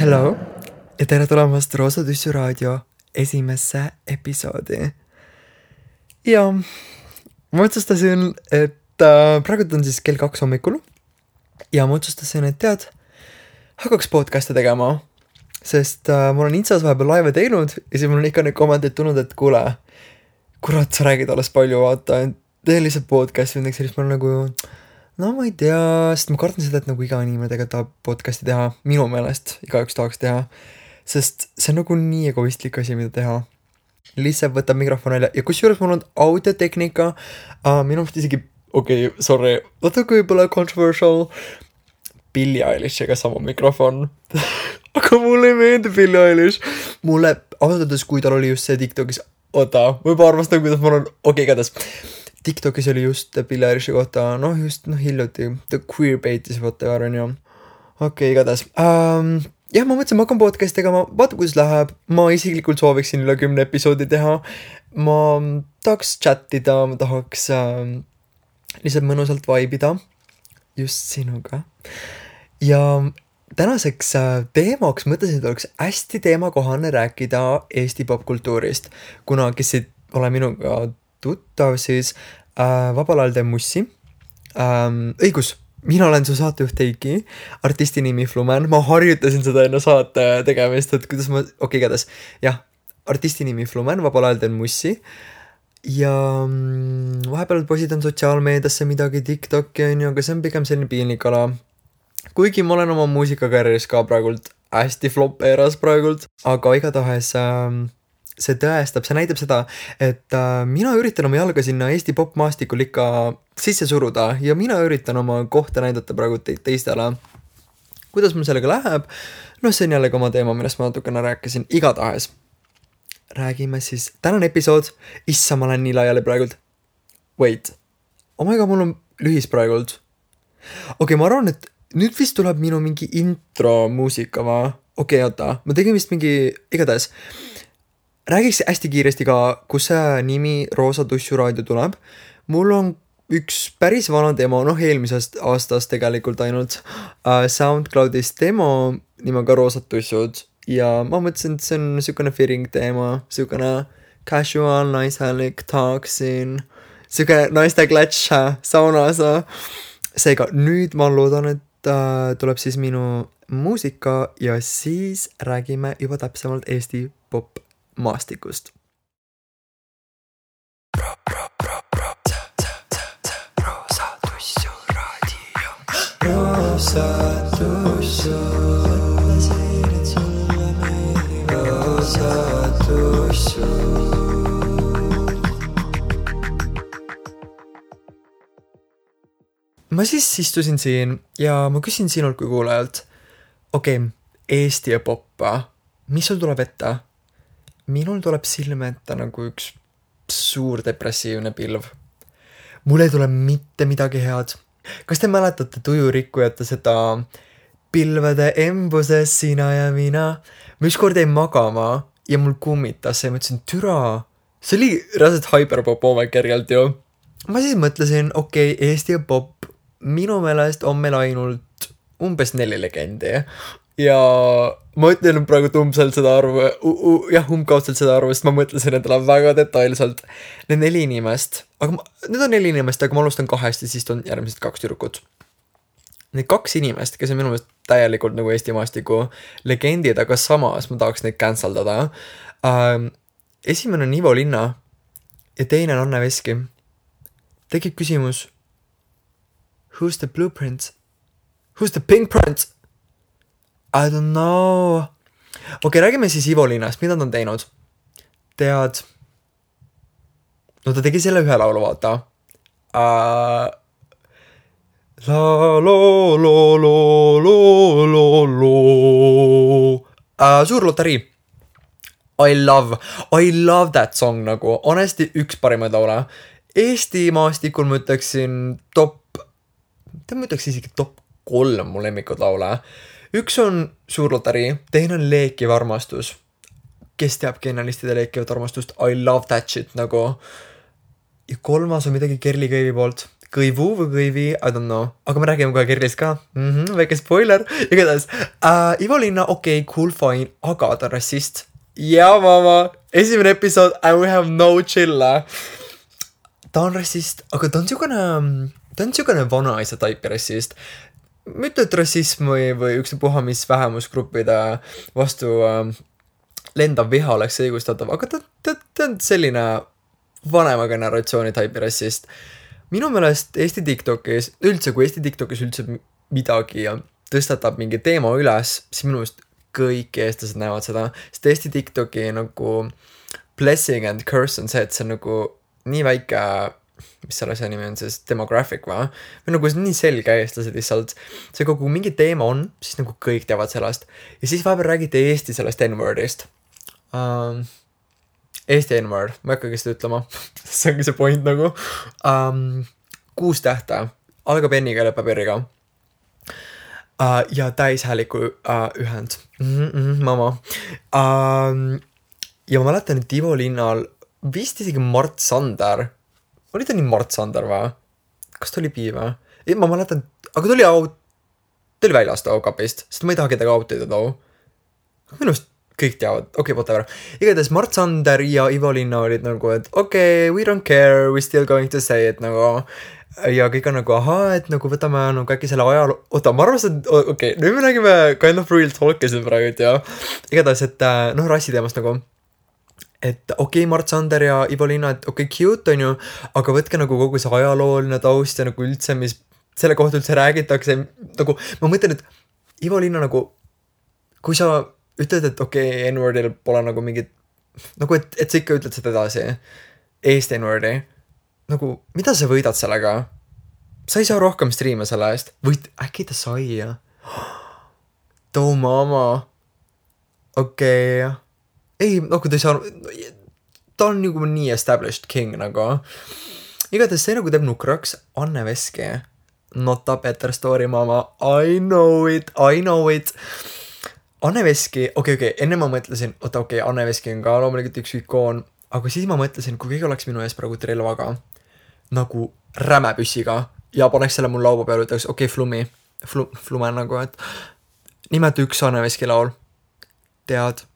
Hello ja tere tulemast Roosa Tüssu raadio esimesse episoodi. Ja ma otsustasin, et praegu on siis kell 2 hommikul ja ma otsustasin, et tead, hakkaks podcast'e tegema, sest ma olen Instas vahepeal laive teinud ja siis mul on ikka neid kommenteid tulnud, et kuule, kurat, sa räägid alles palju, vaata, tee lihtsalt podcast'i või siis ma olen nagu, no ma ei tea, sest ma kardan seda, et nagu iga inimene tegelikult tahab podcast'i teha, minu meelest igaüks tahaks teha, sest see on nagu nii egoistlik asi, mida teha. Lihtsalt võtab mikrofon välja ja kusjuures mul on audiotehnika, minu mõttes isegi, sorry, natuke võib-olla controversial, Billie Eilish'iga sama mikrofon, aga mulle ei meeldi Billie Eilish, mulle ausalt, kui tal oli just see TikTokis, ma juba arvastan, kuidas ma olen, igatahes. TikTokis oli just Billie Eilish'i kohta, hiljuti, ta queerbaitis, on ju. Igatahes. Jah, ma mõtlesin, ma hakkan podcast tegema, vaata kuidas läheb, ma isiklikult sooviksin üle 10 episoodi teha, ma tahaks chattida, ma tahaks lihtsalt mõnusalt vaibida, just sinuga. Ja tänaseks teemaks mõtlesin, et oleks hästi teemakohane rääkida Eesti popkultuurist, kuna kes ei ole minuga tuttav, siis vabal ajal teen mussi. Õigus, mina olen su saatejuht Heiki, artisti nimi Flumen, ma harjutasin seda enne saate tegemist, et kuidas ma, igatahes, jah, artisti nimi Flumen, vabal ajal teen mussi ja vahepeal positan sotsiaalmeediasse midagi TikToki, aga see on pigem selline piinlik ala. Kuigi ma olen oma muusikakarjääris ka praegult hästi flop eras praegult, aga igatahes see tõestab, see näitab seda, et mina üritan oma jalga sinna Eesti popmaastikul ikka sisse suruda ja mina üritan oma kohta näidata praegu teistele. Kuidas mul sellega läheb? See on jällegi oma teema, millest ma natukene rääkisin. Igatahes. Räägime siis. Tänane episood. Issa, ma olen nii laiali praegult. Wait. Mul on lühis praegult. Ma arvan, et nüüd vist tuleb minu mingi intro muusika, va? Oota. Ma tegin vist mingi igatahes. Räägiks hästi kiiresti ka, kus see nimi Roosa Tüssu raadio tuleb. Mul on üks päris vana demo, eelmisest aastast tegelikult ainult SoundCloudis demo nimega Roosa Tüssud ja ma mõtlesin, et see on niisugune fitting teema, niisugune casual, naishäälik talksin, niisugune naiste klatš saunas. Seega nüüd ma loodan, et tuleb siis minu muusika ja siis räägime juba täpsemalt Eesti pop maastikust. Roosa Tüssu raadio. Roosa Tüssu. Mõtlesin, et sulle meeldib Roosa Tüssu. Ma siis istusin siin ja ma küsin sinult kui kuulajalt. Eesti ja poppa. Mis sul tuleb ette? Minul tuleb silme ette nagu üks suur depressiivne pilv. Mul ei tule mitte midagi head. Kas te mäletate Tujurikkujate seda pilvede embuses sina ja mina? Ma ükskord jäin magama ja mul kummitas ja mõtlesin, türa. See oli reaalselt hyperpop omakerjalt ju. Ma siis mõtlesin, Eesti ja pop. Minu meelest on meil ainult umbes 4 legendi. Ja ma ütlen praegu umbkaudselt seda arvu, sest ma mõtlesin endale väga detailselt. Need 4 inimest, need on 4 inimest, aga ma alustan 2 ja siis on järgmised 2 tüdrukut. Need 2 inimest, kes on minu meelest täielikult nagu Eesti maastiku legendid, aga samas ma tahaks neid canceldada. Esimene on Ivo Linna ja teine on Anne Veski. Tekib küsimus, who's the blueprint? Who's the pink print? I don't know. Räägime siis Ivo Linnast, mida ta on teinud? Tead? Ta tegi selle ühe laulu, vaata. La lo lo lo lo lo lo. Suur lotarii. I love that song nagu. Honestly, üks parimaid laule. Eesti maastikul ma ütleksin isegi top 3 mu lemmikud laule. Üks on Suur lotarii, teine on Leekiv armastus. Kes teab genialistide Leekivat armastust? I love that shit nagu. Ja 3. on midagi Kerli Köivi poolt. Kõivu või kõivi, I don't know, aga me räägime kohe Kirlist ka, väike spoiler, igatahes Ivo Linna, okei, cool, fine, aga ta on rassist. Ja mama, esimene episood and we have no chilla. Ta on rassist, aga ta on siukene vanaisa taipi rassist. Mitte, et rassism või ükstapuha, mis vähemusgruppide vastu lendav viha oleks õigustatav, aga ta on selline vanema generatsiooni taipi rassist. Minu meelest Eesti TikTokis, üldse kui Eesti TikTokis üldse midagi tõstatab mingi teema üles, siis minu meelest kõik eestlased näevad seda, sest Eesti TikToki nagu blessing and curse on see, et see on nagu nii väike, mis selle asja nimi on siis, demographic või nagu nii selge eestlased lihtsalt, see kogu mingi teema on, siis nagu kõik teavad sellest ja siis vahepeal räägite Eesti sellest N-wordist. Eesti N-word, ma ei hakkagi seda ütlema, see ongi see point nagu. 6 tähte, algab N-iga ja lõpeb R-iga. Ja täishääliku ühend. Mama. Ja ma mäletan, et Ivo Linnal vist isegi Mart Sander. Oli ta nii Mart Sander või? Kas ta oli pii või? Ma mäletan, aga ta oli väljas too kapist, sest ma ei taha kedagi outida too. Minust kõik teavad, okei, whatever. Igatahes Mart Sander ja Ivo Linna olid nagu, et okei, we don't care, we still going to say it nagu. Ja kõik on nagu, et nagu võtame nagu äkki selle ajaloo, ma arvasin, et okei, nüüd me räägime kind of real talk'i siin praegu, et jah. Igatahes, et rassiteemast nagu. Et okei, Mart Sander ja Ivo Linna, et okei, cute on ju, aga võtke nagu kogu see ajalooline taust ja nagu üldse, mis selle kohta üldse räägitakse, nagu ma mõtlen, et Ivo Linna nagu, kui sa ütled, et okei, N-wordil pole nagu mingit, nagu et sa ikka ütled seda edasi, Eesti N-wordi, nagu mida sa võidad sellega? Sa ei saa rohkem striime selle eest, või äkki ta sai, jah? Too mama, okei, ei, no kui ta ei saa, ta on nagu nii established king nagu. Igatahes see nagu teeb nukraks Anne Veski. Not a better story, mama. I know it. Anne Veski, okei, enne ma mõtlesin, Anne Veski on ka loomulikult üks ikoon, aga siis ma mõtlesin, kui keegi oleks minu ees praegu relvaga, nagu rämepüssiga, ja paneks selle mul laua peale, ütleks, Flume nagu, et nimeta üks Anne Veski laul. Tead?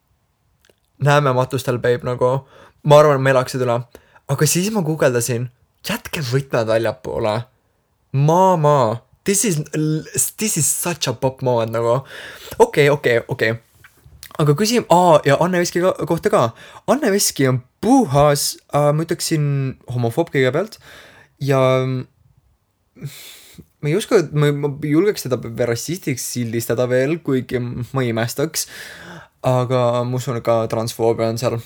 Näeme matustel, babe, nagu, ma arvan, me elaksid üle. Aga siis ma guugeldasin, jätke võtmed väljapoole. Mama, this is such a pop moment, nagu. Okei. Aga küsim, ja Anne Veski kohta ka. Anne Veski on puhas, ma ütleksin homofoob kõigepealt. Ja ma ei uska, ma julgeks teda rassistiks sildistada veel, kuigi ma ei imestaks. Aga ma usun ka transfoobia on seal.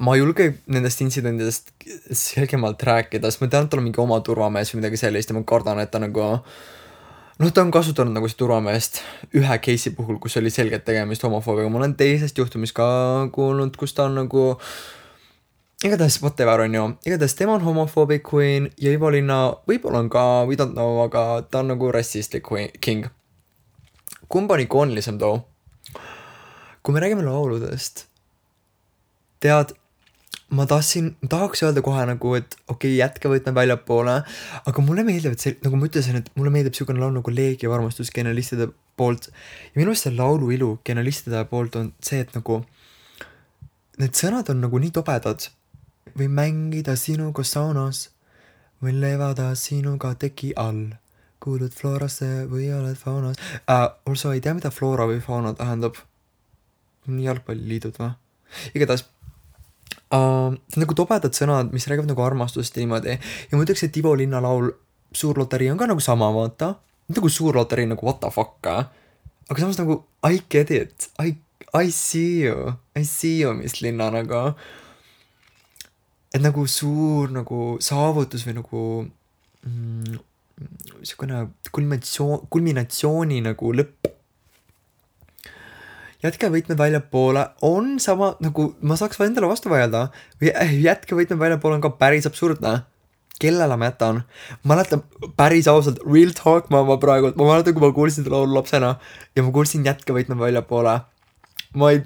Ma ei julge nendest intsidentidest selgemalt rääkida, sest ma tean, et tal on mingi oma turvamees või midagi sellist ja ma kardan, et ta nagu, ta on kasutanud nagu see turvameest ühe case'i puhul, kus oli selgelt tegemist homofoobiaga. Ma olen teisest juhtumist ka kuulnud, kus ta on nagu, igatahes whatever on ju, igatahes tema on homophobic queen ja Ivo Linna võib-olla on ka, we don't know, aga ta on nagu rassistlik king. Kumb on ikoonilisem too? Kui me räägime lauludest, tead, ma tahaks öelda kohe nagu, et okei, jätke võtme väljapoole, aga mulle meeldib, et see, nagu ma ütlesin, et mulle meeldib siukene laul nagu Leegi armastus genialistide poolt ja minu arust see laulu ilu genialistide poolt on see, et nagu need sõnad on nagu nii tobedad. Või mängida sinuga saunas või levada sinuga teki all. Kuulud Florasse või oled faunas. Also ei tea, mida Flora või fauna tähendab. Jalgpalliliidud või? Igatahes nagu tobedad sõnad, mis räägivad nagu armastust niimoodi. Ja ma ütleks, et Ivo Linna laul Suur loterii on ka nagu sama, vaata. Nagu Suur loterii nagu what the fuck, aga samas nagu I get it. I see you, mis Linna nagu. Et nagu suur nagu saavutus või nagu siukene kulminatsiooni nagu lõpp. Jätke võitmed väljapoole on sama, nagu ma saaks endale vastu vaielda. Jätke võitmed väljapoole on ka päris absurdne. Kellele ma jätan? Ma mäletan päris ausalt, real talk ma praegu, ma mäletan, kui ma kuulsin seda laulu lapsena ja ma kuulsin jätke võitmed väljapoole. Ma ei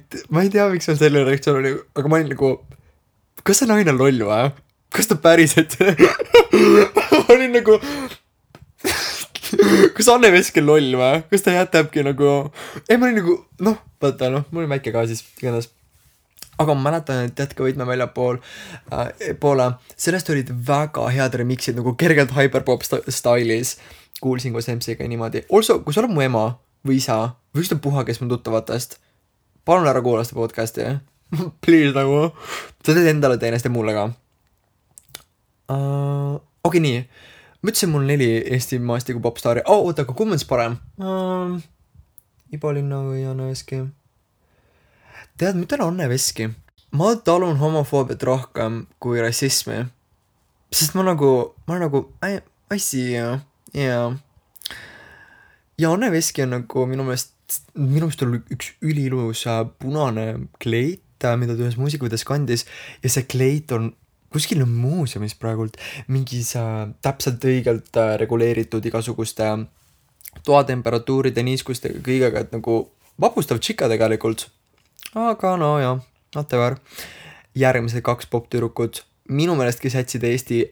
tea, miks on selline reaktsioon oli, aga ma olin nagu, kas see naine on loll või? kas ta päriselt ma olin nagu kas Anne Veski on loll või? Kas ta jätabki nagu ei, ma olin nagu vaata mul oli väike ka siis igatahes. Aga ma mäletan, et jätka võitme väljapool poole, sellest olid väga head remixid nagu kergelt hyperpop stylis. Kuulsin koos MC-ga niimoodi. Also, kui sa oled mu ema või isa või ükspuha, kes mu tuttavatest, palun ära kuula seda podcasti. Please nagu. Sa teed endale teenest ja mulle ka. Okei, nii. Ma ütlesin mul 4 Eesti maastiku popstaari. Oota, aga kumb on siis parem? Ibo Linna või Anne Veski? Tead, ma ütlen Anne Veski. Ma talun homofoobiat rohkem kui rassismi. Sest ma I see you. Yeah. Ja Anne Veski on nagu minu meelest oli üks ülilus punane kleit, mida ta ühes muusikavideos kandis. Ja see kleit on kuskil muuseumis praegult mingis täpselt õigelt reguleeritud igasuguste toatemperatuuride, niiskustega kõigega, et nagu vapustav tšika tegelikult. Aga no jah, whatever. Järgmised 2 poptüdrukud minu meelest, kes jätsid Eesti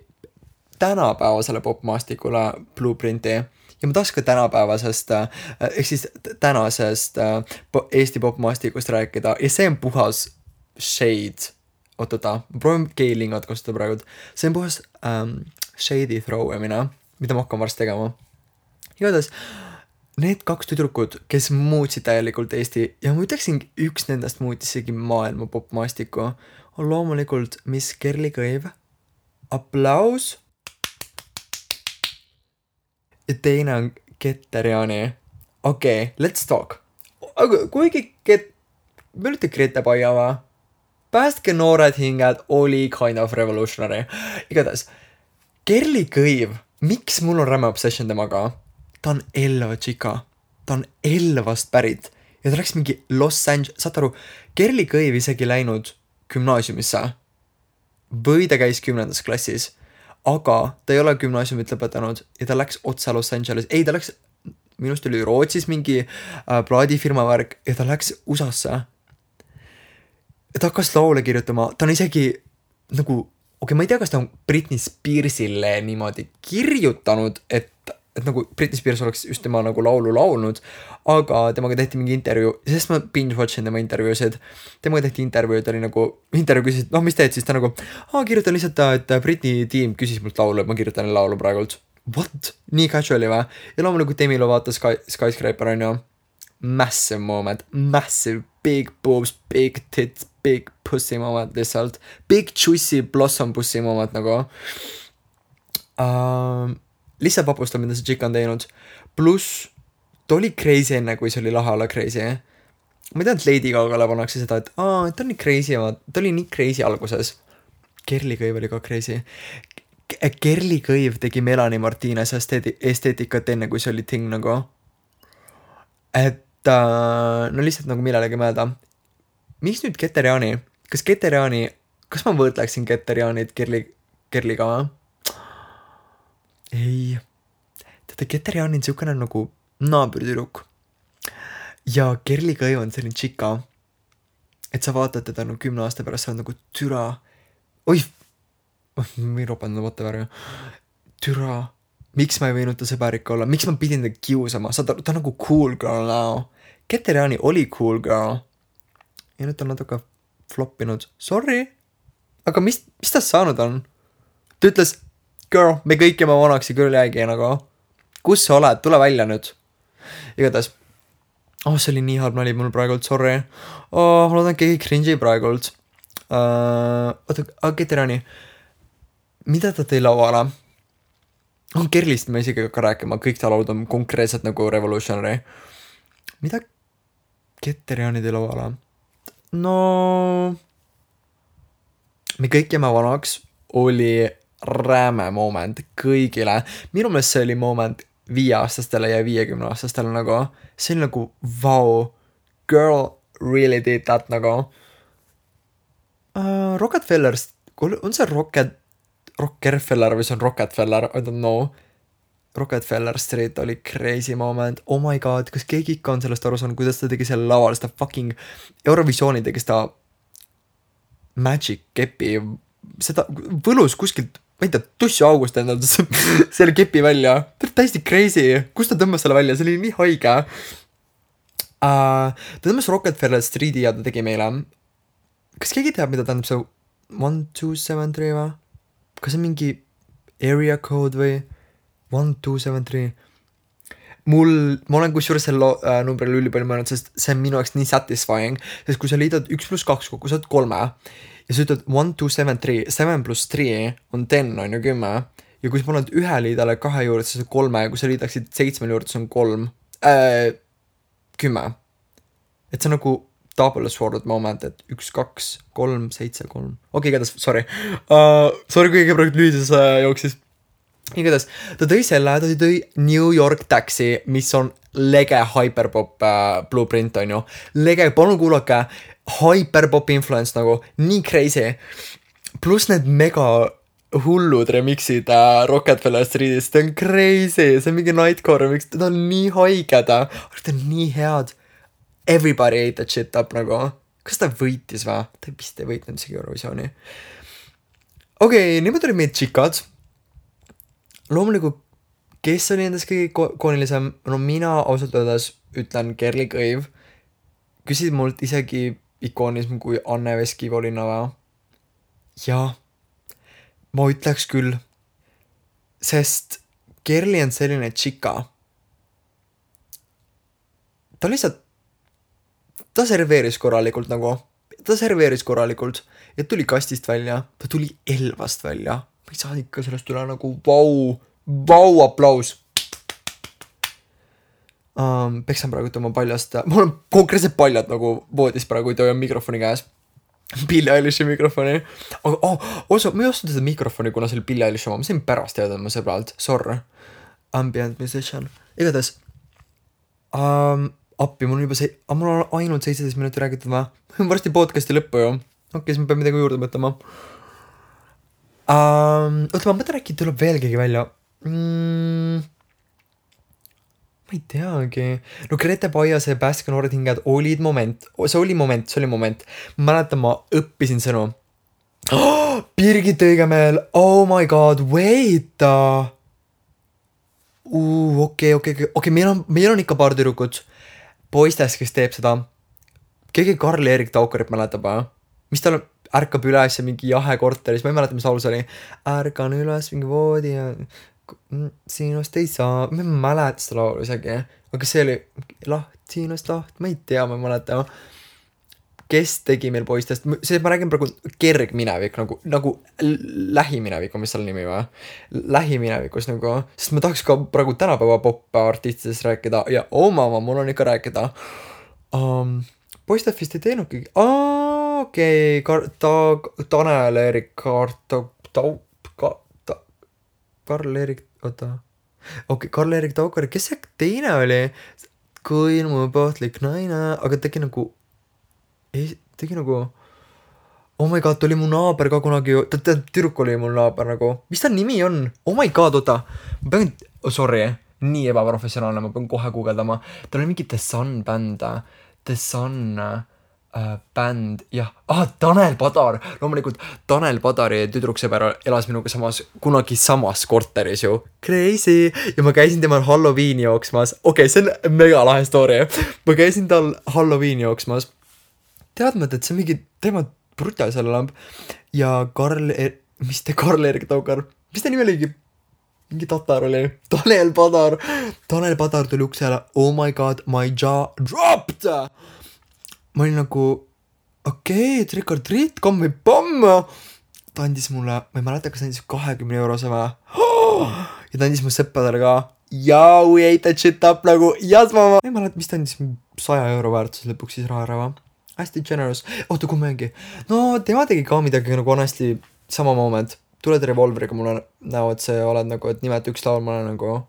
tänapäevasele popmaastikule blueprinti. Ja ma tahaks ka tänapäevasest, ehk siis tänasest Eesti popmaastikust rääkida. Ja see on puhas shade. Ootota, ma proovin keilingat kasutada praegu. See on puhas shady throw'emine, mida ma hakkan varsti tegema. Igatahes, need 2 tüdrukud, kes muutsid täielikult Eesti ja ma ütleksin, üks nendest muutisigi maailma popmaastiku, on loomulikult Miss Kerli Kõiv. Aplaus. Ja teine on Keter-Jaani. Okei, let's talk. Aga kuigi me olite Grete Paia va? Päästke noored hinged oli kind of revolutionary. Igatahes, Kerli Kõiv, miks mul on räme obsession temaga? Ta on Elva tšika. Ta on Elvast pärit. Ja ta läks mingi Los Angeles. Saad aru, Kerli Kõiv isegi läinud gümnaasiumisse. Või ta käis 10. klassis. Aga ta ei ole gümnaasiumit lõpetanud. Ja ta läks otsa Los Angeles. Ei, ta läks, minust oli Rootsis mingi plaadifirma värk. Ja ta läks USA-sse. Ja ta hakkas laule kirjutama. Ta on isegi nagu, ma ei tea, kas ta on Britney Spearsile niimoodi kirjutanud, et nagu Britney Spears oleks just tema nagu laulu laulnud, aga temaga tehti mingi intervjuu, sest ma binge-watchin tema intervjuusid. Temaga tehti intervjuu, ta oli nagu, intervjuu küsis, mis teed siis? Ta nagu, kirjutan lihtsalt, et Britney tiim küsis mult laulu, et ma kirjutan laulu praegult. What? Nii casuali või? Ja loomulikult Demilo vaatas Skyscraper on ju. Massive moment, massive, big boobs, big tits, big pussy moment lihtsalt. Big juicy blossom pussy moment nagu. Lihtsalt vapustab, mida see tšik on teinud. Pluss, ta oli crazy enne, kui see oli lahe olla crazy. Ma ei tea, et Lady Gagale pannakse seda, et ta on nii crazy, ta oli nii crazy alguses. Kerli Kõiv oli ka crazy. Kerli Kõiv tegi Melanie Martinez esteetikat enne, kui see oli thing nagu. Et no lihtsalt nagu millelegi mõelda. Miks nüüd Keter-Jaani? Kas ma võrdleksin Keter-Jaanit Kerliga või? Ei. Teate, Keter-Jaani on siukene nagu naabertüdruk. Ja Kerli Kõiv on selline tšika. Et sa vaatad teda 10 aasta pärast, sa on nagu türa. Oih! Ma ei ropanud whatever. Türa. Miks ma ei võinud ta sõbärik olla? Miks ma pidin ta kiusama? Ta on nagu cool girl now. Keter-Jaani oli cool girl. Ja nüüd on natuke floppinud. Sorry. Aga mis ta saanud on? Ta ütles, girl, me kõik jääme vanaks ja küll jäägi nagu. Kus sa oled? Tule välja nüüd. Igatahes. See oli nii halb nali mul praegult, sorry. Ma loodan keegi cringe'i praegult. Keter-Jaani. Mida ta tõi lauale? Kerlist me isegi ka rääkima, kõik ta laud on konkreetselt nagu revolutionary. Mida Keter-Jaani tõi lauale? No, me kõik jääme vanaks oli räme moment kõigile. Minu meelest see oli moment 5-aastastele ja 50-aastastele nagu. See oli nagu, wow, girl really did that nagu. Rockefeller, on see Rockefeller või see on Rockefeller, I don't know. Rockefeller Street oli crazy moment. Oh my god, kas keegi ikka on sellest aru saanud, kuidas ta tegi selle laval, seda fucking Eurovisiooni tegi seda Magic Kepi seda võlus kuskilt, ma ei tea, tussu august endal selle kepi välja. Täiesti crazy. Kust ta tõmbas selle välja? See oli nii haige. Ta tõmbas Rockefeller Streeti ja ta tegi meile. Kas keegi teab, mida tähendab see 1273 või? Kas see mingi area code või 1273? Ma olen kusjuures selle numbril ülipalju mõelnud, sest see on minu jaoks nii satisfying, sest kui sa liidad 1 + 2 kokku, sa oled 3 ja sa ütled 1273, 7 + 3 on 10, on ju 10 ja kui sa paned ühe liidale 2 juurde, siis on 3 ja kui sa liidaksid 7 juurde, siis on 10. Et see on nagu double sword moment, et 1, 2, 3, 7, 3. Okei, igatahes, sorry. Sorry, kui praegu lüüdes jooksis. Igatahes, ta tõi New York Taxi, mis on lege hyperpop blueprint, on ju. Lege, palun kuulake, hyperpop influence nagu, nii crazy. Plus need mega hullud remixid Rockefeller Street'is, ta on crazy, see on mingi nightcore remix, ta on nii haiged, aga ta on nii head. Everybody ate that shit up nagu. Kas ta võitis või? Ta vist ei võitnud isegi Eurovisiooni. Okei, niimoodi oli meid tšikad. Loomulikult, kes oli endas kõige koonilisem? No mina ausalt öeldes ütlen Kerli Kõiv. Küsid mult isegi ikoonism kui Anne Veskivolina või? Jaa, ma ütleks küll. Sest Kerli on selline tšika. Ta lihtsalt, ta serveeris korralikult nagu. Ta serveeris korralikult ja tuli kastist välja. Ta tuli Elvast välja. Ma ei saa ikka sellest üle nagu vau aplaus. Peksan praegu oma paljast. Mul on konkreetselt paljad nagu voodis praegu, kui on mikrofoni käes. Billie Eilishi mikrofoni. Aga ma ei ostnud seda mikrofoni, kuna see oli Billie Eilishi oma. Ma sain pärast teada oma sõbralt. Sorry. Ambient musician. Igatahes. Appi, mul on ainult 17 minutit räägitud või? Varsti podcasti lõppu ju. Okei, siis ma pean midagi juurde mõtlema. Oota, ma mõtlen äkki tuleb veel keegi välja. Ma ei teagi. No Grete Paiase ja Pääske noored hinged olid moment. See oli moment. Ma mäletan, ma õppisin sõnu. Birgit Õigemeel. Oh my god, wait. Okei, meil on ikka paar tüdrukut. Poistes, kes teeb seda. Keegi Karl-Erik Taukarit mäletab, mis tal ärkab üles ja mingi jahe korteris, ma ei mäleta, mis laulus oli. Ärkan üles mingi voodi ja sinust ei saa, ma ei mäleta seda laulu isegi. Aga see oli sinust laht, ma ei tea, ma ei mäleta. Kes tegi meil poistest, ma räägin praegu kergminevik, nagu lähiminevik on mis seal nimi või? Lähiminevikus nagu, sest ma tahaks ka praegu tänapäeva pop-artistidest rääkida ja mul on ikka rääkida. Poistest vist ei teenudki. Okei, Tanel-Erik Karl-Erik, oota. Okei, Karl-Erik Taukar, kes see teine oli? Kui mu pohtlik naine, aga tegi nagu, oh my god, oli mu naaber ka kunagi, tüdruk oli mul naaber nagu, mis ta nimi on? Oh my god, oota, ma pean, sorry, nii ebaprofessionaalne, ma pean kohe guugeldama, tal oli mingi The Sun bänd, The Sun bänd, jah, Tanel Padar, loomulikult Tanel Padari tüdruksõber elas minuga kunagi samas korteris ju, crazy, ja ma käisin temal Halloweeni jooksmas, okei, see on mega lahe story, ma käisin tal Halloweeni jooksmas, teadmata, et see mingi teema brutal seal lamb, ja Karl-Erik Taukar, mis ta nimi oligi? Mingi tatar oli, Tanel Padar tuli uksele, oh my god, my jaw dropped! Ma olin nagu, okei, trick or treat, komm või pomm. Ta andis mulle, ma ei mäleta, kas ta andis 20 eurose või. Ja ta andis mu sõppadele ka. Yeah, we ate that shit up nagu, yes mama. Ma ei mäleta, mis ta andis 100 euro väärtuses lõpuks siis raha ära või. Hästi generous. Oota, kui mängi. No, tema tegi ka midagi nagu honestly sama moment. Tuled revolveriga mulle näo, et see oled nagu, et nimeta üks laul, ma olen nagu...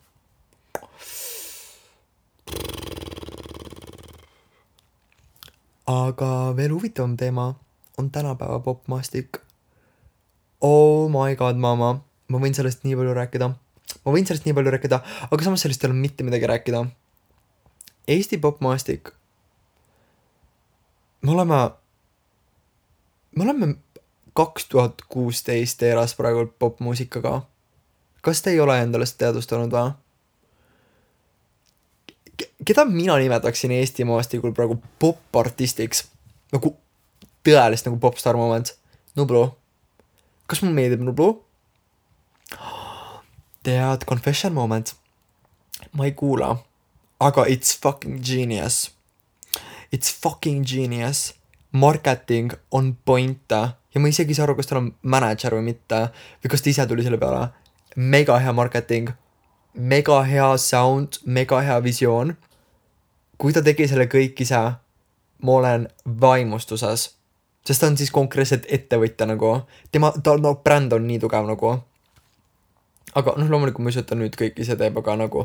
Aga veel huvitavam teema on tänapäeva popmaastik. Oh my god, mama. Ma võin sellest nii palju rääkida. Aga samas sellest ei ole mitte midagi rääkida. Eesti popmaastik. Me oleme 2016 eras praegu popmuusikaga. Kas te ei ole endale seda teadvustanud või? Keda mina nimetaksin Eesti maastikul praegu pop-artistiks? Nagu tõelist nagu popstar moment. Nublu. Kas mul meeldib Nublu? Tead, confession moment. Ma ei kuula. Aga it's fucking genius. It's fucking genius. Marketing on point. Ja ma isegi ei saa aru, kas tal on manager või mitte. Või kas ta ise tuli selle peale. Mega hea marketing. Mega hea sound. Mega hea visioon. Kui ta tegi selle kõik ise, ma olen vaimustuses. Sest ta on siis konkreetselt ettevõtja nagu. Ta bränd on nii tugev nagu. Aga loomulikult ma ei ütleta nüüd kõik ise teeb, aga nagu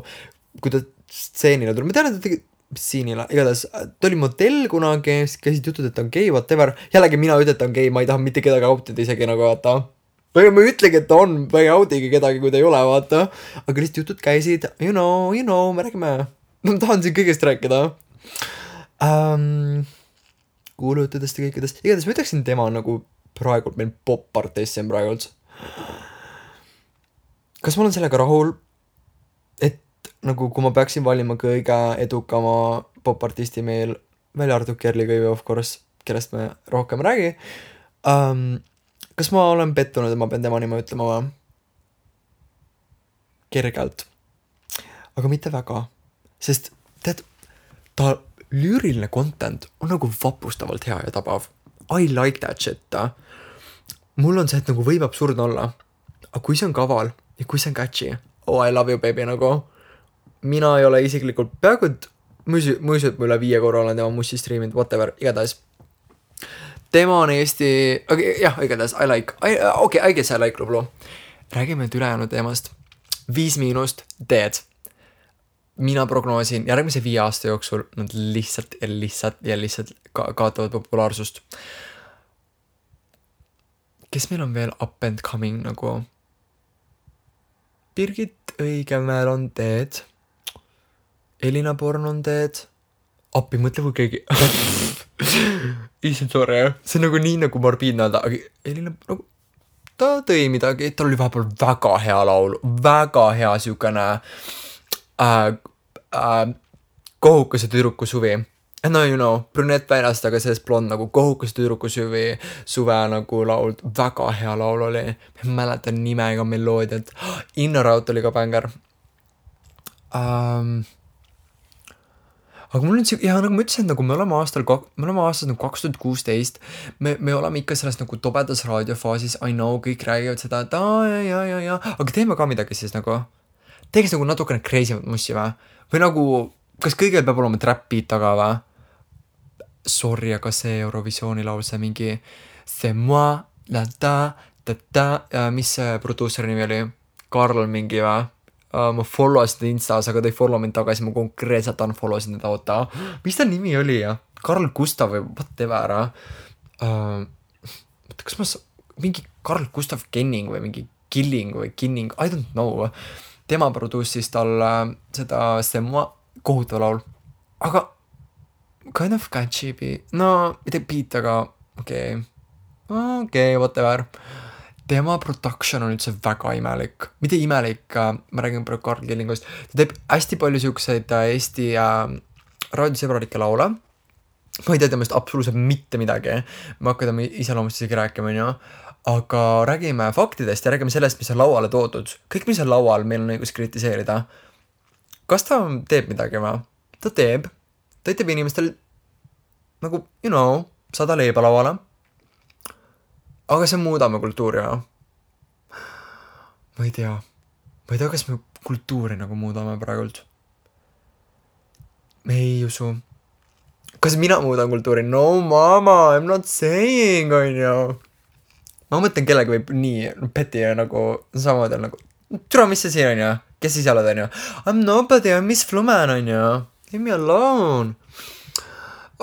kui ta stseenile tuli, ma tean, et ta tegi siinile, igatahes ta oli modell kunagi, käisid jutud, et ta on gei, whatever, jällegi mina ütlen, et ta on gei, ma ei taha mitte kedagi autida isegi nagu vaata, või ma ütlegi, et ta on, ma ei autige kedagi, kui ta ei ole, vaata, aga lihtsalt jutud käisid, you know, me räägime, ma tahan siin kõigest rääkida, kuulutudest ja kõikidest, igatahes ma ütleksin tema nagu praegu meil pop-artist siin praegu üldse. Kas ma olen sellega rahul, et nagu kui ma peaksin valima kõige edukama pop-artisti meil, välja arvatud Kerli Kõivi, of course, kellest me rohkem räägi, kas ma olen pettunud, et ma pean tema nime ütlema või? Kergelt. Aga mitte väga. Sest tead, ta lüüriline content on nagu vapustavalt hea ja tabav. I like that shit. Mul on see, et nagu võib absurdne olla. Aga kui see on kaval ja kui see on catchy, oh I love you baby nagu. Mina ei ole isiklikult peaaegu, et ma üle 5 korra olen tema mussi streaminud, whatever, igatahes. Tema on Eesti, jah, igatahes, I guess I like Lublu. Räägime nüüd ülejäänud teemast. 5- teed. Mina prognoosin järgmise 5 aasta jooksul nad lihtsalt kaotavad populaarsust. Kes meil on veel up and coming nagu? Birgit Õigemäel on teed. Elina Born on teed. Appi, mõtle kui keegi. Issand, sorry. See on nagu nii nagu morbiidne öelda, aga Elina nagu, ta tõi midagi, tal oli vahepeal väga hea laul, väga hea siukene kohukese tüdruku suvi. No you know, brünett väljast, aga sellest blond nagu kohukese tüdruku suve nagu laul, väga hea laul oli. Ma mäletan nime ega meloodiat. Innoraut oli ka bänger. Aga mul on ja nagu ma ütlesin, nagu me oleme aastas nagu 2016, me oleme ikka selles nagu tobedas raadiofaasis, I know, kõik räägivad seda, et ja, aga teeme ka midagi siis nagu, teeks nagu natukene crazymat mussi või? Või nagu, kas kõigil peab olema trap beat taga või? Sorry, aga see Eurovisiooni laul, see mingi c'est moi, la ta, mis see produuseri nimi oli? Karl mingi või? Ma follow seda Instas, aga ta ei follow mind tagasi, ma konkreetselt unfollow sin teda, oota. Mis ta nimi oli ja? Karl Gustav või whatever. Kas ma mingi Karl Gustav Kenning või mingi Killing või Kinning, I don't know. Tema produussis tal seda Stemma kohutav laul. Aga kind of catchy beat. No, mitte beat, aga okei, whatever. Tema production on üldse väga imelik. Mitte imelik, ma räägin praegu Karl Killingust. Ta teeb hästi palju siukseid Eesti raadiosõbralikke laule. Ma ei tea temast absoluutselt mitte midagi. Ma hakkan tema iseloomust isegi rääkima, on ju. Aga räägime faktidest ja räägime sellest, mis on lauale toodud. Kõik, mis on laual, meil on õigus kritiseerida. Kas ta teeb midagi või? Ta teeb. Ta teeb inimestel nagu, you know, 100 leiba lauale. Aga see muudame kultuuri, jah? Ma ei tea, kas me kultuuri nagu muudame praegult. Me ei usu. Kas mina muudan kultuuri? No mama, I'm not saying, on ju. Ma mõtlen, kellegi võib nii peti nagu samamoodi nagu, türa, mis see siin on ju? Kes siis oled, on ju? I'm nobody, I'm Miss Fluman, on ju? Leave me alone.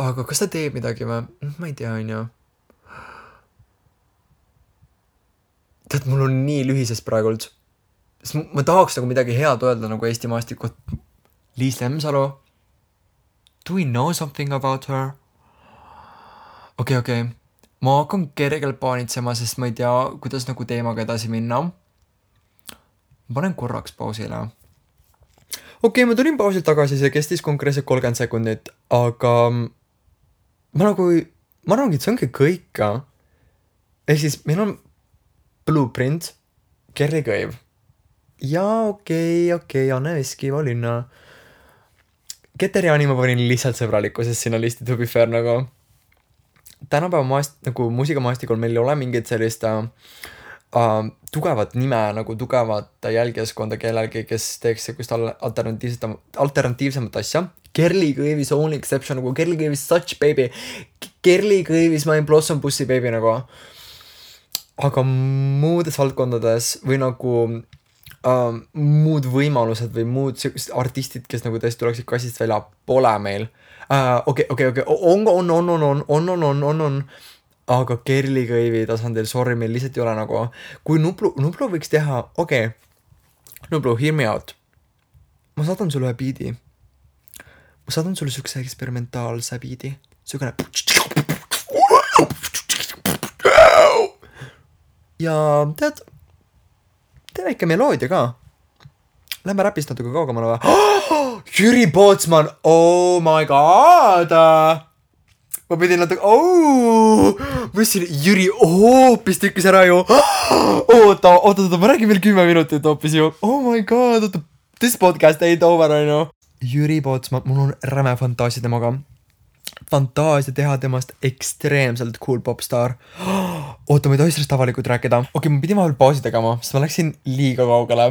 Aga kas ta teeb midagi või? Ma ei tea, on ju. Tead, mul on nii lühises praegult. Sest ma tahaks nagu midagi head öelda nagu Eesti maastikut. Liis Lemsalu. Do we know something about her? Okay. ma hakkan kergelt paanitsema, sest ma ei tea, kuidas nagu teemaga edasi minna. Ma panen korraks pausile. Okei, ma tulin pausilt tagasi, see kestis konkreetselt 30 sekundit, aga ma arvangi, et see ongi kõik. Ehk siis meil on Blueprint, Kerli Kõiv ja okei, Anne Veskiva linna. Keteriani ma panin lihtsalt sõbralikkusest sinna listi, to be fair nagu. Tänapäeva nagu muusikamaastikul meil ei ole mingit sellist tugevat nime, nagu tugevat jälgijaskonda kellelgi, kes teeks sellist alternatiivsemat asja. Kerli Kõiv is only exception, nagu Kerli Kõiv is such baby. Kerli Kõiv is my Blossom Bussi baby nagu. Aga muudes valdkondades või nagu muud võimalused või muud artistid, kes nagu tõesti tuleksid kassist välja, pole meil. Okei, on. Aga Kerli Kõivi tasandil, sorry, meil lihtsalt ei ole nagu. Kui Nublu võiks teha, Nublu, hear me out. Ma saadan sulle ühe biidi. Ma saadan sulle sükse eksperimentaalse biidi. Sükene. Ja tead, tee väike meloodia ka. Lähme räpist natuke kaugemale või? Jüri Pootsman, oh my god! Ma pidin natuke, ma ütlesin, Jüri hoopis tükkis ära ju. Oota, ma räägin veel 10 minutit hoopis ju. Oh my god, this podcast ain't over, I know. Jüri Pootsman, mul on räme fantaasia temaga. Fantaasia teha temast ekstreemselt cool popstar. Oota, ma ei tohi sellest avalikult rääkida. Okei, ma pidin vahel pausi tegema, sest ma läksin liiga kaugele.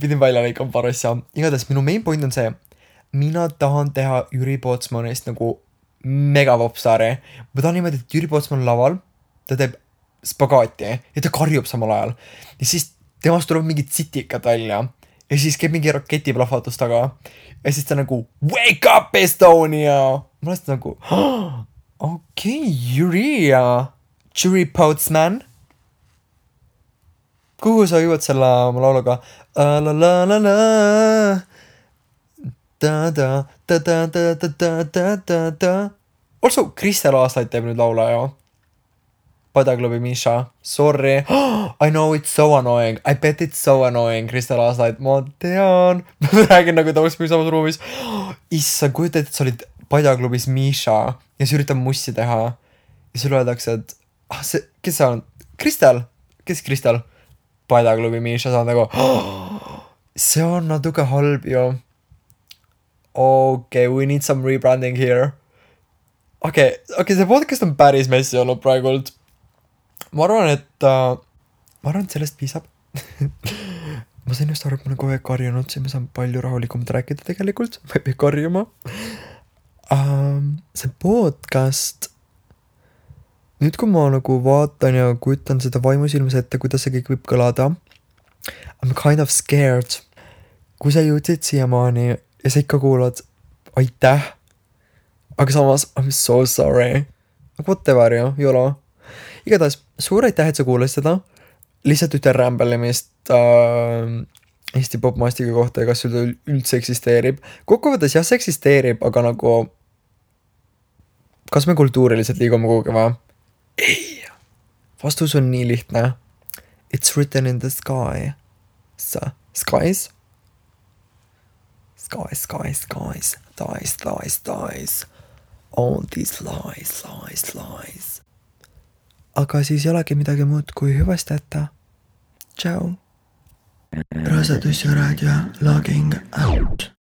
Pidin välja lõikama paar asja. Igatahes minu main point on see, mina tahan teha Jüri Pootsmanist nagu mega popstari. Ma tahan niimoodi, et Jüri Pootsman laval, ta teeb spagaati ja ta karjub samal ajal. Ja siis temast tuleb mingid sitikad välja. Ja siis käib mingi raketiplahvatus taga. Ja siis ta nagu, wake up Estonia! Ma olen nagu, okei, Jüri Pootsman. Kuhu sa jõuad selle oma lauluga? Also, Kristel Aaslaid teeb nüüd laula ju. Padaklubi Misha. Sorry. I know it's so annoying. I bet it's so annoying, Kristel Aaslaid. Ma tean. Ma räägin nagu ta oleks kui samas ruumis. Issa, kujuta, et sa olid Padjaklubis Misha ja sa üritab mussi teha. Ja sulle öeldakse, et kes see on? Kristel? Kes Kristel? Padjaklubi Misha, sa on nagu see on natuke halb ju. Okay, we need some rebranding here. Okay, see podcast on päris messi olnud praegult. Ma arvan, et sellest piisab. Ma sain just aru, et ma olen kogu aeg karjunud, siis ma saan palju rahulikumalt rääkida tegelikult. Ma ei pea karjuma. See podcast, nüüd kui ma nagu vaatan ja kujutan seda vaimusilmas ette, kuidas see kõik võib kõlada, I'm kind of scared. Kui sa jõudsid siiamaani ja sa ikka kuulad, aitäh. Aga samas, I'm so sorry. Whatever ju, jolo. Igatahes, suur aitäh, et sa kuulasid seda. Lihtsalt ütle rämbellemist Eesti popmaastiga kohta ja kas sul üldse eksisteerib. Kokkuvõttes jah, see eksisteerib, aga nagu kas me kultuuriliselt liigume kuhugi või? Ei. Vastus on nii lihtne. It's written in the sky. Skies? Skies. Dies. All these lies. Aga siis ei olegi midagi muud kui hüvasti jätta. Ciao. Rasedus ja raadio logging out.